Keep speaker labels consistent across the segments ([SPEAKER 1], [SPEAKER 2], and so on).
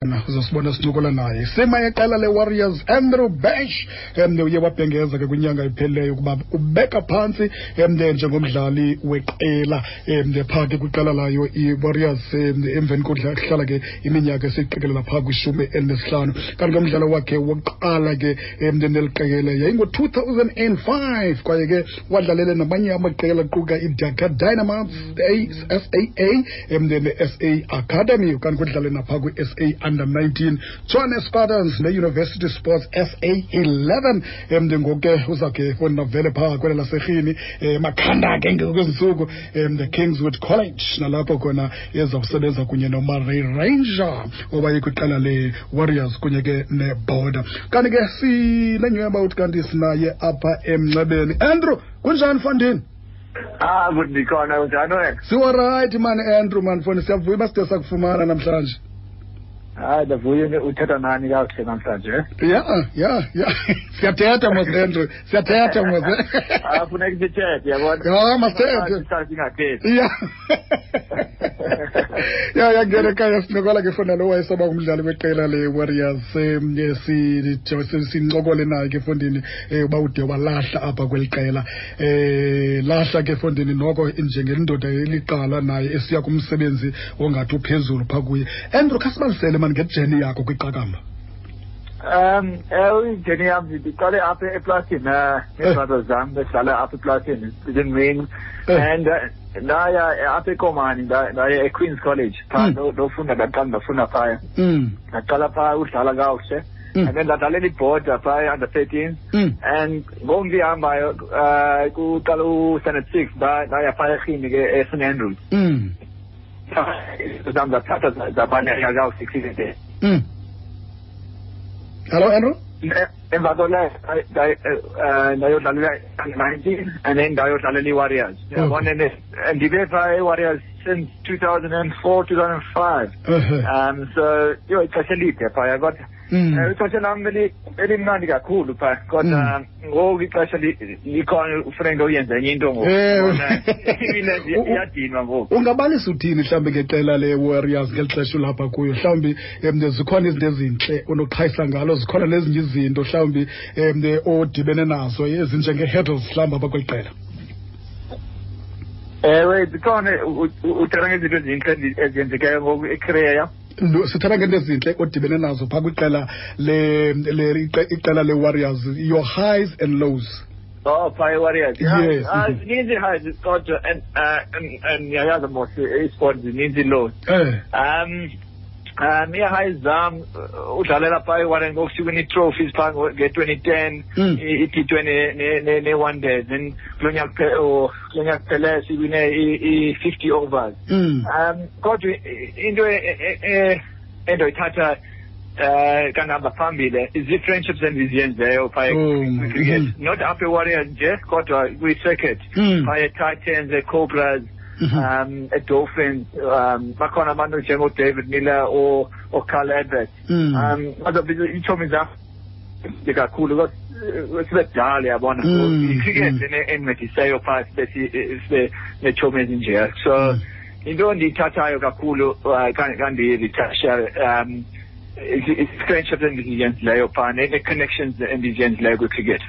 [SPEAKER 1] Uzasibona sincokola naye sima yeqela leWarriors, Andrew Bash. Uye wabhengeza ke kwinyanga ephelileyo ukuba ubeka phantsi njengomdlali weqela phaa ke kwiqela layo iWarriors, emveni kokuhlala ke iminyaka esiqikelela phaa kwi-15. Kanti ke umdlalo wakhe wokuqala ke neli qela yayingo-2005, kwaye ke wadlalele namanye amaqela aquka iDhaka Dynamos, SAA, ne-SA Academy, kanti kudlale naphaa kwi-SA Under 19, Tshwane Spartans ne-University Sports SA 11. Ngoku ke uzawukhe fondavele phaa kwele laserhini, makhanda ke ngokwezi ntsuku, the Kingswood College, nalapho khona ezawusebenza kunye noMurray Ranger owaye kwiqela le-Warriors kunye ke neBorder. Kanti ke sinenyhweba uthi kanti sinaye apha emnxebeni. Andrew, kunjani fondini?
[SPEAKER 2] Ah, good, ndikhona. Unjani wena?
[SPEAKER 1] Siwarayithi mani, Andrew, mani foni, siyavuya uba side sakufumana namhlanje.
[SPEAKER 2] Hayi, ndavuya uthetha nani kakuhle namhlanje.
[SPEAKER 1] Ya, siyathetha mos, Andrew, siyathetha mos.
[SPEAKER 2] Ah, funeka sithethe, yabona.
[SPEAKER 1] Ya, masithethe.
[SPEAKER 2] Sihlale singathethi.
[SPEAKER 1] Ya, ngena ekhaya, sincokola ke fona lo wayesaba ngumdlali weqela le-Warriors. Sincokole naye ke fondini, uba ude walahla apha kweli qela, lahla ke fondini noko njengendoda eliqala naye esiya kumsebenzi ongathi uphezulu phaa kuye. Andrew, khasibalisele mani nge-journey yakho kwiqakamba.
[SPEAKER 2] Ewe, i-journey yam, ndiqale apha eplasini nee-brothers zam, besidlala apha eplasini sizincinci and ndaya apha eKomani, ndaya eQueen's College phaa, ndofunda. Ndaqala ndafunda phaya, ndaqala phaa udlala kakuhle and then ndadlalela iBorder phaa under 13 and ngoku ndihambayo, kuqala u-standard 6, ndaya phaa eRhini ke, eSt Andrews. Zam zathatha zabaleka kakuhle cricket.
[SPEAKER 1] Hello, Andrew.
[SPEAKER 2] Emva koleyo ndayodlalela 19 and then ndayodlalela i-Warriors, yabona. Ndibe phaa e-Warriors since 2004, 2005. So yho, ixesha elide phaya, kodwa ixesha lam elimnandi kakhulu phaa, kodwa ngoku ixesha likhona, ufuneka uyenze enye into ngoku. Iyadinwa ngoku.
[SPEAKER 1] Ungabalisa uthini mhlawumbi ngeqela le-Warriors ngeli xesha ulapha kuyo? Mhlawumbi zikhona izinto ezintle onoqhayisa ngalo, zikhona nezinye izinto mhlawumbi odibene nazo ezinjenge-hurdles mhlawumbi apha kweli qela.
[SPEAKER 2] Ewe, zikhona. Uthetha ngezinto ezintle ezenzekayo ngoku ecareer yam?
[SPEAKER 1] Sithetha ngento ezintle odibene nazo phaa kwiqela iqela le-Warriors, your highs and lows.
[SPEAKER 2] Oh, phaa e-Warriors.
[SPEAKER 1] Yes.
[SPEAKER 2] Zininzi ii-highs, kodwa and ndiyayazi mos i-sport zininzi ii-lows. Ii-highs zam, udlalela phaa e-Warriors ngoku, siwina ii-trophies phaa nge-2010, i-T20 ne-one day, then kulo nyaka kuphele siwine i-50 overs. Kodwa into endoyithatha kangihamba phambili zii-friendships endiziyenzeyo phaa kwi-cricket, not apha e-Warriors nje kodwa kwi-circuit, phaa e-Titans, e-Cobras, e-Dolphins. Bakhona abantu njengoDavid Miller oCarl Edwards. Bazobiza iitshomi zam kakhulu because sibe kudala, yabona. I-cricket endincediseyo phaa sibe neetshomi ezinjeya. So into endiyithathayo kakhulu kandiyi-retire is-friendships endiziyenzileyo phaa nee-connections endiziyenzileyo kwi-cricket.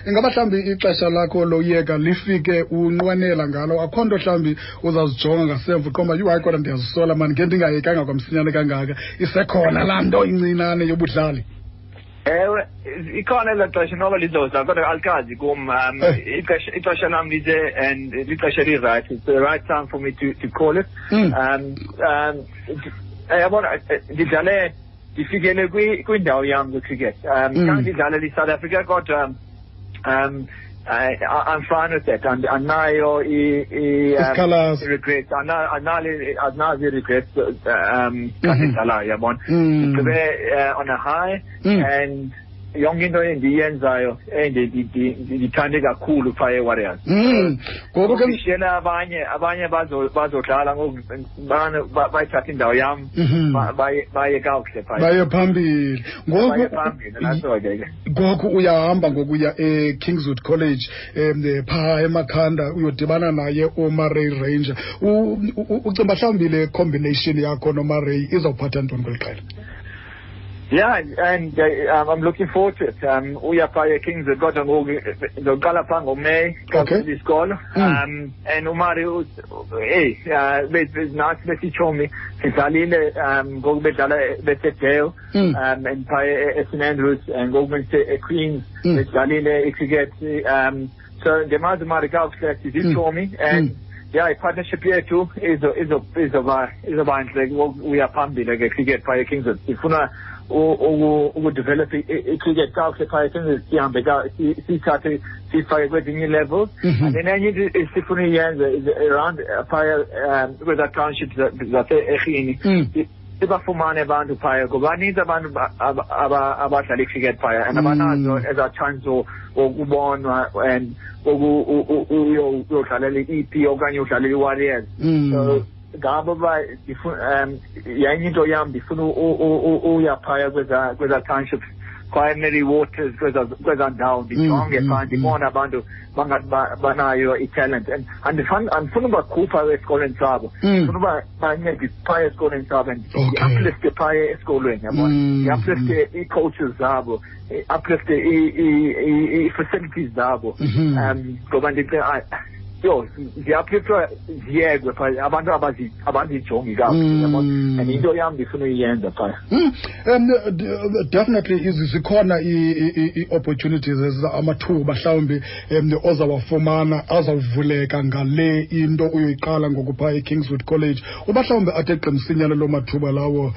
[SPEAKER 1] Ingaba mhlawumbi ixesha lakho loyeka lifike unqwenela ngalo? Akho nto mhlawumbi uzazijonga ngasemva uqomba, "Yhu, hayi kodwa ndiyazisola mani, nge ndingayekanga kwamsinyane kangaka"? Isekhona laa nto incinane yobudlali?
[SPEAKER 2] Ewe, ikhona elaa xesha, noba lizoza, kodwa alikazi kum. Ixesha lam lize and lixesha eli-right. It's the right time for me to call it. Yabona, ndidlale, ndifikele kwindawo yam kwi-cricket. Khange ndidlalele iSouth Africa, kodwa I'm fine with that. Andinayo
[SPEAKER 1] Isikhalazo.
[SPEAKER 2] I-regrets. Andinazo i-regrets xa ndidlalayo, yabona. Ndigqibe on a high and Yonke into endiyenzayo ndithande kakhulu phaa eWarriors.
[SPEAKER 1] Ngoku ke
[SPEAKER 2] ndishiyela abanye bazodlala ngoku, bayithatha indawo yam, baye kakuhle phaa.
[SPEAKER 1] Baye phambili.
[SPEAKER 2] Baye phambili, naso ke.
[SPEAKER 1] Ngoku uyahamba ngokuya eKingswood College phaa eMakhanda, uyodibana naye uMurray Ranger. Ucinga mhlawumbi le combination yakho noMurray izawuphatha ntoni kweli qela?
[SPEAKER 2] Yeah, and I'm looking forward to it. Uya phaa eKingswood, kodwa ngoku ndizoqala phaa ngoMeyi isikolo. And uMurray, hey, nathi besitshomi sidlalile ngoku bedlala beseDale, and phaa eSt Andrews, and ngoku bese-Queens bedlalile icricket. So ndimazi uMurray kakuhle, sizitshomi, and yeah, i-partnership yethu izoba ntle uya phambili ke cricket phaa eKingswood. Sifuna ukudevelop i-cricket kakuhle phaa eKingswood, sihambe siyithathe siyifake kwezinye ii-levels. And then enye into esifuna uyenze is around phaa kwezaa township zase-Erhini, sibafumane abantu phaya, ngoba baninzi abantu abadlala i-cricket phaya and abanazo ezaa chance wokubonwa and uyodlalela i-EP okanye udlalela i-Warriors. So ngabo ba yenye into yam, ndifuna uya phaya kweza townships, kwaye Mary Waters, kweza ndawo, ndijonge phaa, ndibone abantu bangathi banayo i-talent, and andifuna ubakhupha esikolweni sabo, ndifuna uba bancede phaya esikolweni sabo and ndi-uplifte phaya esikolweni, yabona, ndi-uplifte ii-coaches zabo, uplifte ii-facilities zabo, ngoba ndicinga yho ziyaphithwa ziyekwe phaa, abantu abazijongi kakuhle, yabona, and into yam ndifuna uyiyenza phaa.
[SPEAKER 1] Definitely zikhona ii-opportunities, amathuba mhlawumbi ozawafumana azawuvuleka ngale into uyoyiqala ngoku phaa eKingswood College. Uba mhlawumbi athe qimsinyane loo mathuba lawo,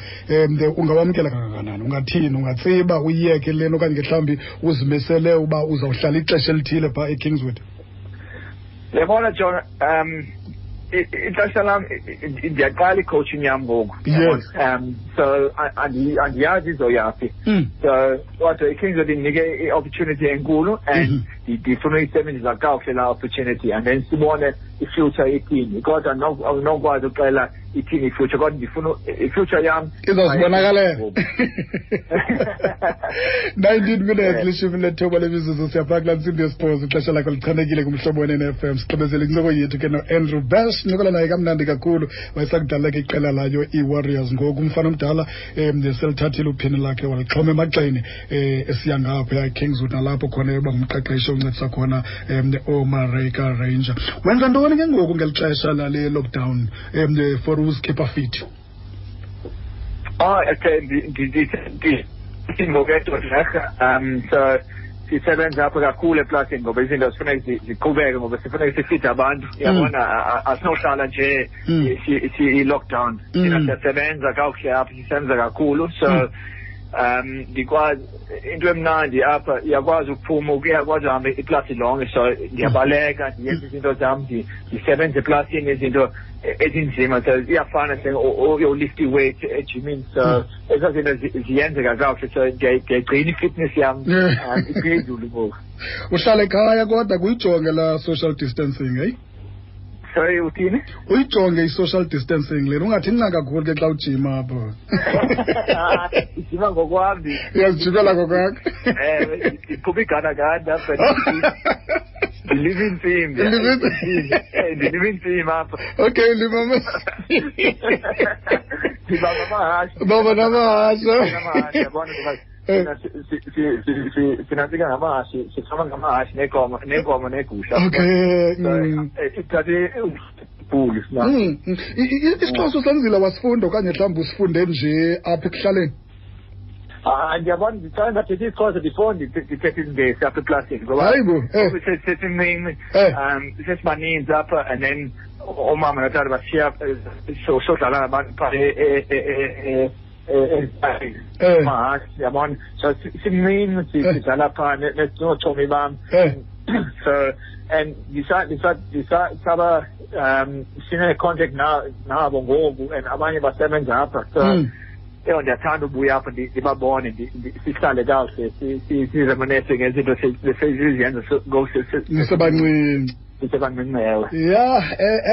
[SPEAKER 1] ungawamkela kangakanani? Ungathini? Ungatsiba uyiyeke lena okanye mhlawumbi uzimisele uba uzawuhlala ixesha elithile phaa eKingswood?
[SPEAKER 2] Yabona John, ixesha lam, ndiyaqala i-coaching yam ngoku. So andiyazi izoyaphi. So kodwa iKingswood indinike i-opportunity enkulu and ndifuna uyisebenzisa kakuhle laa opportunity, and then sibone i-future ithini. Kodwa andinokwazi uxela ithini i-future, kodwa ndifuna i-future yam
[SPEAKER 1] izawuzibonakalela. 19 minutes 19 lemizuzu, siyaphaa kulaa ntsimbi yesibhozo. Ixesha lakho lichanekile kumhlobo weNFM. Sigqibezele incoko yethu ke noAndrew Bash, ncokola naye kamnandi kakhulu. Wayesakudlala ke iqela layo iWarriors, ngoku umfana omdala selithathile uphini lakhe walixhoma emagxeni, esiya ngapha eKingswood, nalapho khona yoba ngumqeqeshi oncedisa khona ooMurray Ranger. Wenza ntoni ke ngoku ngeli xesha lale lockdown for uzikhipha fit?
[SPEAKER 2] Oh, okay, ngoku so sisebenza apha kakhulu eplasini, ngoba izinto zifuneka ziqhubeke, ngoba sifuneka sifide abantu, uyabona, asinohlala nje i-lockdown. Thina siyasebenza kakuhle apha, sisebenza kakhulu, so ndikwazi into emnandi apha, iyakwazi ukuphuma, uyakwazi uhamba iplasi lonke, so ndiyabaleka, ndiyenza izinto zam, ndisebenza eplasini, izinto ezinzima, so iyafana uyolift i-weight ejimini, so ezaa zinto ziyenzeka kakuhle, so ndiyayigcina i-fitness yam iphezulu ngoku.
[SPEAKER 1] Uhlala ekhaya kodwa kuyijonge la social distancing, hey?
[SPEAKER 2] Sorry, uthini?
[SPEAKER 1] Uyijonge i-social distancing lena, ungathi nca kakhulu ke xa ujima apho.
[SPEAKER 2] Ijima ngokwam.
[SPEAKER 1] Uyazijimela ngokwakho.
[SPEAKER 2] Ndiqhuba iganagana apha. Ndilima intsimbi. Ndilima intsimbi apha.
[SPEAKER 1] Okay, lima.
[SPEAKER 2] Ndibamba amahashe.
[SPEAKER 1] Bamba namahashe.
[SPEAKER 2] Amahashe, yabona, ngoba sinantsika ngamahashe, sifama ngamahashe neenkomo neegusha.
[SPEAKER 1] Okay.
[SPEAKER 2] Ithathe bhulu sina.
[SPEAKER 1] IsiXhosa usenzile wasifunda okanye mhlawumbi usifunde nje apha ekuhlaleni?
[SPEAKER 2] Ndiyabona, ndicela ndathetha isiXhosa before ndithethe isiNgesi apha eplasini, ngoba
[SPEAKER 1] Hayibo,
[SPEAKER 2] sesincinci, sesibaninzi apha, and then oomama notata bashiya sodlala nabantu phaa mahashe, yabona, so simncinci sidlala phaa nootshomi bam. So and ndisaba sine-contact nabo ngoku, and abanye basebenza apha, so Eyo, ndiyathanda ubuya apho, ndibabone, sihlale kakuhle, sizemanese ngezinto siziyenza ngoku
[SPEAKER 1] nisebancinci.
[SPEAKER 2] Sisebancinci, ewe.
[SPEAKER 1] Ya,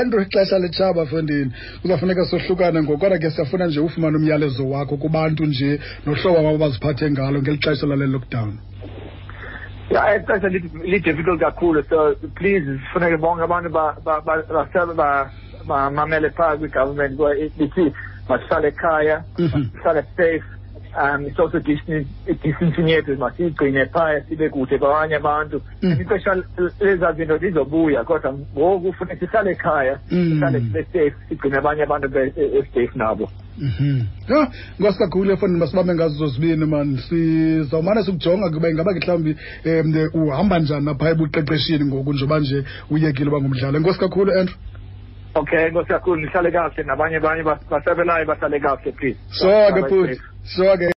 [SPEAKER 1] Andrew, ixesha litshaba, fondini, kuzafuneka sohlukane ngoku, kodwa ke siyafuna nje ufumane umyalezo wakho kubantu nje nohlobo abo baziphathe ngalo ngeli xesha lale lockdown.
[SPEAKER 2] Ya, ixesha li-difficult kakhulu, so please sifuneke bonke abantu bamamele phaa kwi-government lithi masihlale ekhaya, sihlale safe, social distancing yethu masiyigcine phaya, sibe kude kwabanye abantu. Ixesha lezaa zinto lizobuya, kodwa ngoku funeka sihlale ekhaya, sihlale sibe safe, sigcine abanye abantu be-safe nabo.
[SPEAKER 1] Ya, nkosi kakhulu efondini, masibambe ngazo zozibini mani, sizawumane sikujonga kuba ingaba ke mhlawumbi uhamba njani napha ebuqeqeshini ngoku njengoba nje uyekile uba ngumdlali. Enkosi kakhulu, Andrew.
[SPEAKER 2] Okay, enkosi kakhulu, nihlale kakuhle, nabanye abanye basebelayo bahlale kakuhle, please.
[SPEAKER 1] So ke futhi, so ke.